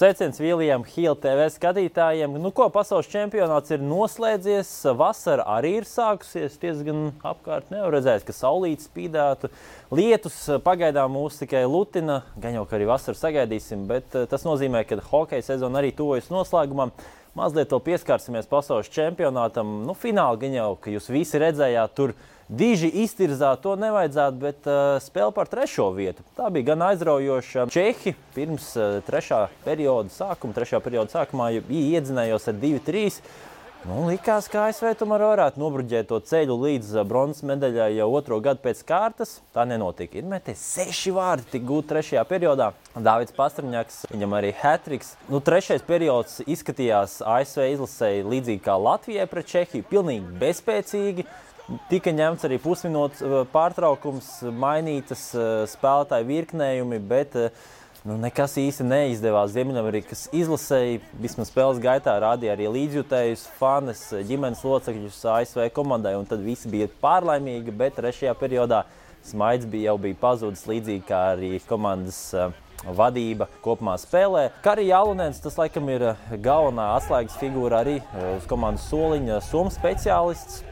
Sveiciens Viljam Hīla TV skatītājiem. Pasaules čempionāts ir noslēdzies, vasara arī ir sākusies, diezgan apkārt nevar redzēt, ka saulīte spīdētu. Lietus pagaidām mūs tikai lutina, gan jau, ka arī vasaru sagaidīsim, bet tas nozīmē, ka hokeja sezona arī tuvojas noslēgumam. Mazliet vēl pieskārsimies pasaules čempionātam. Fināli gan jau, ka jūs visi redzējāt, tur diži iztirzāt, to nevajadzētu, bet spēle par 3. vietu. Tā bija gan aizraujoša. Čehi pirms 3. perioda sākumā iedzinējos ar 2-3. Likās, ka ASV tomēr varētu nobruģēt to ceļu līdz bronzas medaļai jau 2. gadu pēc kārtas. Tā nenotika. Ir meties 6 vārdi tik gūti 3. periodā. Dāvids Pastrņaks, viņam arī hat-triks. 3. periods izskatījās ASV izlasēji līdzīgi kā Latvijai pret Čehiju. Pilnīgi bezspēcīgi. Tika ņemts arī pusminūtes pārtraukums, mainītas spēlētāju virknējumi, bet nekas īsti neizdevās. Ziemeļamerikas izlasēji vismaz spēles gaitā rādīja arī līdzjutējus, fanes, ģimenes locekļus ASV komandai, un tad visi bija pārlaimīgi, bet 3. periodā smaids jau bija pazudis līdzīgi kā arī komandas vadība kopumā spēlē. Kari Jālunēns, tas laikam ir galvenā atslēgas figūra arī uz komandas soliņa, somu speciālists.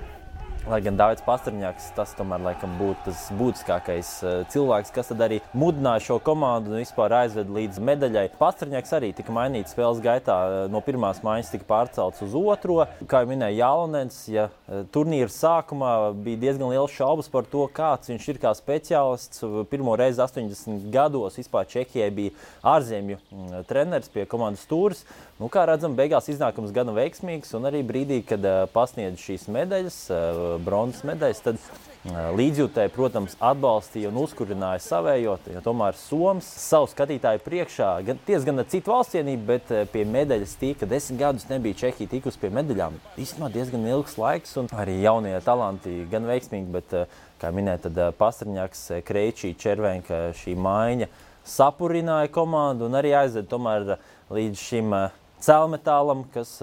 Lai gan Dāvids Pastrņaks, tas tomēr laikam būtu tas būtiskākais cilvēks, kas tad arī mudināja šo komandu un vispār aizved līdz medaļai. Pastrņaks arī tika mainīts spēles gaitā, no pirmās maiņas tika pārcelts uz 2. Kā jau minēja Jālunēns, ja turnīra sākumā bija diezgan liels šaubas par to, kāds viņš ir kā speciālists. Pirmo reizi 80 gados vispār Čehijai bija ārzemju treneris pie komandas stūres. Kā redzam, beigās iznākums gana veiksmīgs, un arī brīdī, kad pasniedz šīs medaļas, bronzas medaļas, tad līdzjūtēji, protams, atbalstīja un uzkurināja savējo, jo tomēr Soms savu skatītāju priekšā, gan ar citu valstsienību, bet pie medaļas tika 10 gadus nebija Čehija tikus pie medaļām. Īstenībā diezgan ilgs laiks, un arī jaunie talanti gan veiksmīgi, bet, kā minēja, tad Pastrņaks, Kreičī, Červenka šī maiņa sapurināja komandu un arī aizved tomēr līdz šim cēlmetālam, kas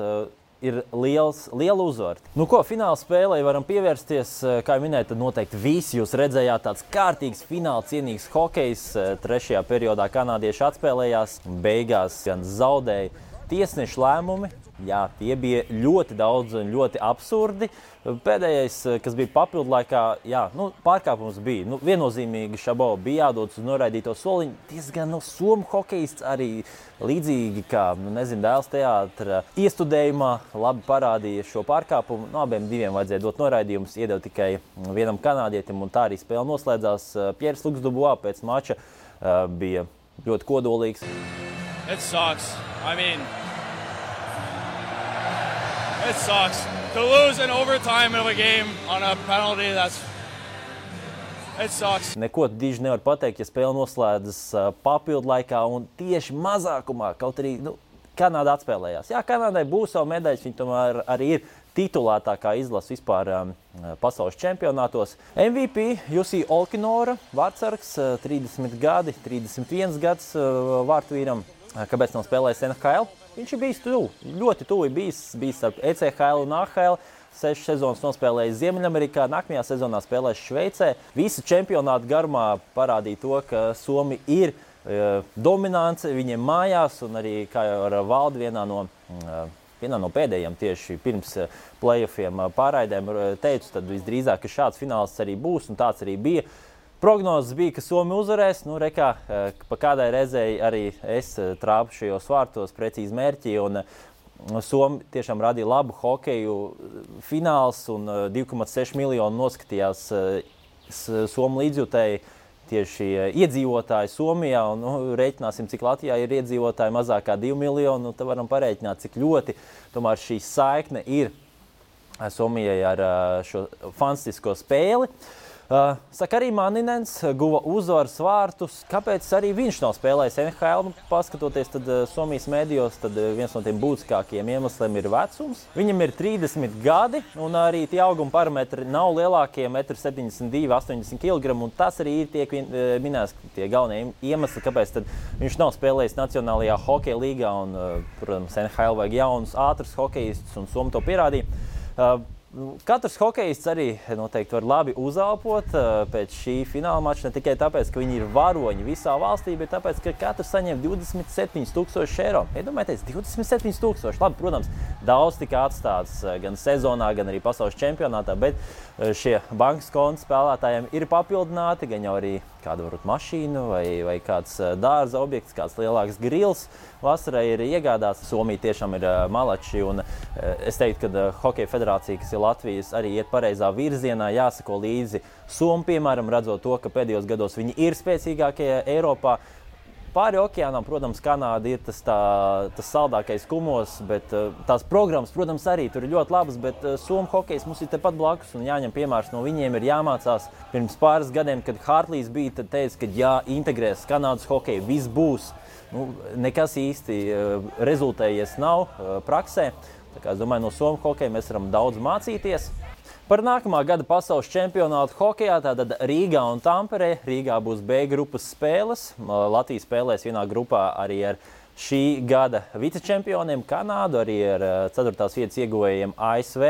ir liela uzvara. Fināla spēlei varam pievērsties, kā jau minēju, tad noteikti visi jūs redzējāt tāds kārtīgs fināla cienīgs hokejs. 3. periodā kanādieši atspēlējās, beigās gan zaudēja tiesnešu lēmumi. Jā, tie bija ļoti daudz un ļoti absurdi. Pēdējais, kas bija papildu laikā, pārkāpums bija. Viennozīmīgi Šabo bija jādodas uz noraidīto soliņu. Diezgan somu hokejists arī līdzīgi kā, Dēls teātra iestudējumā labi parādīja šo pārkāpumu. Abiem diviem vajadzēja dot noraidījumus, iedeva tikai vienam kanādietim, un tā arī spēle noslēdzās. Pieris Luks-Dubois pēc mača bija ļoti kodolīgs. It sucks. It sucks. To lose in overtime of a game on a penalty, it sucks. Neko diži nevar pateikt, ja spēle noslēdzas papildu laikā un tieši mazākumā, kaut arī Kanāda atspēlējās. Jā, Kanādai būs savu medaļas, viņi tomēr arī ir titulētākā izlase vispār pasaules čempionātos. MVP Jussi Olkinora, vārtsargs, 30 gadi, 31 gads vārtvīram. Kāpēc nav spēlējis NHL? Viņš ir bijis ļoti tuvi bijis starp ECHL un AHL. 6 sezonas nospēlējis Ziemeļamerikā, nākamajā sezonā spēlēs Šveicē. Visa čempionāta garumā parādīja to, ka Somi ir dominants viņiem mājās, un arī, kā jau ar Valdi vienā no pēdējiem tieši pirms playoffiem pārraidēm teicu, tad visdrīzāk, ka šāds fināls arī būs, un tāds arī bija. Prognozes bija, ka Somi uzvarēs. Pa kādai reizei arī es trāpu šajos vārtos precīzi mērķi, un Somi tiešām radīja labu hokeju fināls, un 2,6 miljonu noskatījās Somu līdzjutēji tieši iedzīvotāji Somijā, un rēķināsim, cik Latvijā ir iedzīvotāji mazāk kā 2 miljoni, tad varam parēķināt, cik ļoti tomēr šī saikne ir Somijai ar šo fantastisko spēli. Sakari Maninens guva uzvaras vārtus. Kāpēc arī viņš nav spēlējis NHL? Paskatoties tad Somijas medijos, tad viens no tiem būtiskākajiem iemesliem ir vecums. Viņam ir 30 gadi, un arī tie auguma parametri nav lielākie, 1,72 m, 80 kg, un tas arī ir tiek minēts tie galvenie iemesli, kāpēc tad viņš nav spēlējis Nacionālajā hokeja līgā, un, protams, NHL vajag jaunus, ātrus hokejistus, un Somi to pierādīja. Katrs hokejists arī noteikti var labi uzelpot pēc šī fināla mača, ne tikai tāpēc, ka viņi ir varoņi visā valstī, bet tāpēc, ka katrs saņem 27,000 eiro. Iedomājieties, 27,000. Labi, protams, daudz tika atstāts gan sezonā, gan arī pasaules čempionātā, bet šie bankas konta spēlētājiem ir papildināti, gan jau arī kāda varbūt mašīna vai kāds dārza objekts, kāds lielāks grils. Vasarai ir iegādāts. Somija tiešām ir malači, un es teiktu, ka Hokeja federācija, kas ir Latvijas, arī iet pareizā virzienā, jāsako līdzi Somu, piemēram, redzot to, ka pēdējos gados viņi ir spēcīgākie Eiropā. Pāri okeānam, protams, Kanāda ir tas saldākais kumos, bet tās programmas, protams, arī tur ir ļoti labas, bet Somu hokejs mums ir tepat blakus un jāņem piemērs no viņiem, ir jāmācās. Pirms pāris gadiem, kad Hartlīs bija, tad teica, ka jāintegrēs Kanādas hokeju, viss būs. Nekas īsti rezultējies nav praksē. Tā kā es domāju, no Somu hokeja mēs varam daudz mācīties. Par nākamā gada pasaules čempionātu hokejā, tātad Rīgā un Tamperē. Rīgā būs B grupas spēles. Latvija spēlēs vienā grupā arī ar šī gada vicečempioniem Kanādu, arī ar 4. vietas ieguvējiem ASV.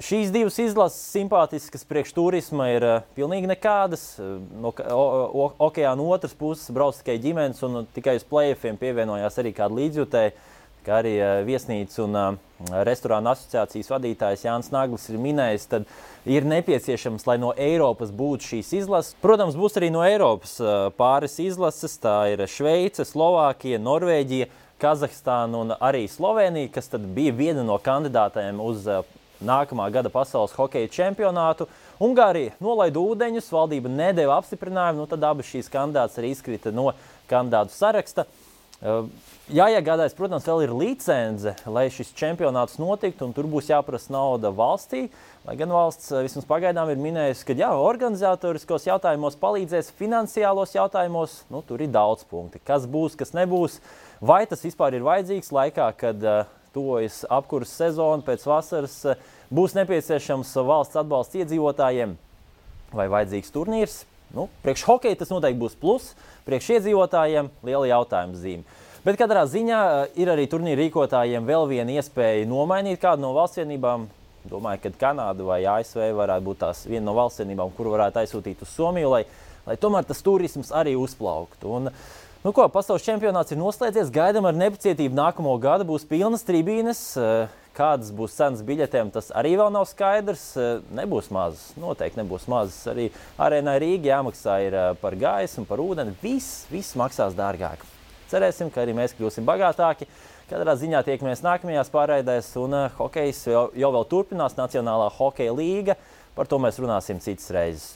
Šīs divas izlases simpātiskas priekš turisma ir pilnīgi nekādas. No okeāna otras puses brauc tikai ģimenes un tikai uz play-offiem pievienojās arī kāda līdzjutēja, kā arī viesnīcu un restorānu asociācijas vadītājs Jānis Naglis ir minējis, tad ir nepieciešams, lai no Eiropas būtu šīs izlases. Protams, būs arī no Eiropas pāris izlases. Tā ir Šveice, Slovākija, Norvēģija, Kazahstāna un arī Slovenija, kas tad bija viena no kandidātēm uz nākamā gada pasaules hokeja čempionātu. Ungārija nolaida ūdeņus, valdība nedeva apstiprinājumu, tad abas šīs kandidātas arī izkrita no kandidātu saraksta. Jāiegādājas, protams, vēl ir licence, lai šis čempionāts notiktu, un tur būs jāprasa nauda valstī. Lai gan valsts vismaz pagaidām ir minējusi, ka organizatoriskos jautājumos palīdzēs, finansiālos jautājumos, tur ir daudz punkti. Kas būs, kas nebūs, vai tas vispār ir vajadzīgs laikā, kad tuvojas apkuras sezona, pēc vasaras būs nepieciešams valsts atbalsts iedzīvotājiem vai vajadzīgs turnīrs. Priekš hokeja tas noteikti būs plus, priekš iedzīvotājiem liela jautājuma zīme. Bet katrā ziņā ir arī turnīra rīkotājiem vēl viena iespēja nomainīt kādu no valstsvienībām. Domāju, ka Kanāda vai ASV varētu būt tās viena no valstsvienībām, kuru varētu aizsūtīt uz Somiju, lai tomēr tas turisms arī uzplauktu. Pasaules čempionāts ir noslēdzies, gaidām ar nepacietību nākamo gadu, būs pilnas tribīnes. Kādas būs cenas biļetēm, tas arī vēl nav skaidrs. Nebūs mazas, noteikti nebūs mazas. Arī arēnai Rīga jāmaksā ir par gaisu un par ūdeni. Viss maksās dārgāk. Cerēsim, ka arī mēs kļūsim bagātāki. Katrā ziņā tiekamies nākamajās pārraidēs, un hokejs jau vēl turpinās, Nacionālā hokeja līga. Par to mēs runāsim citas reizes.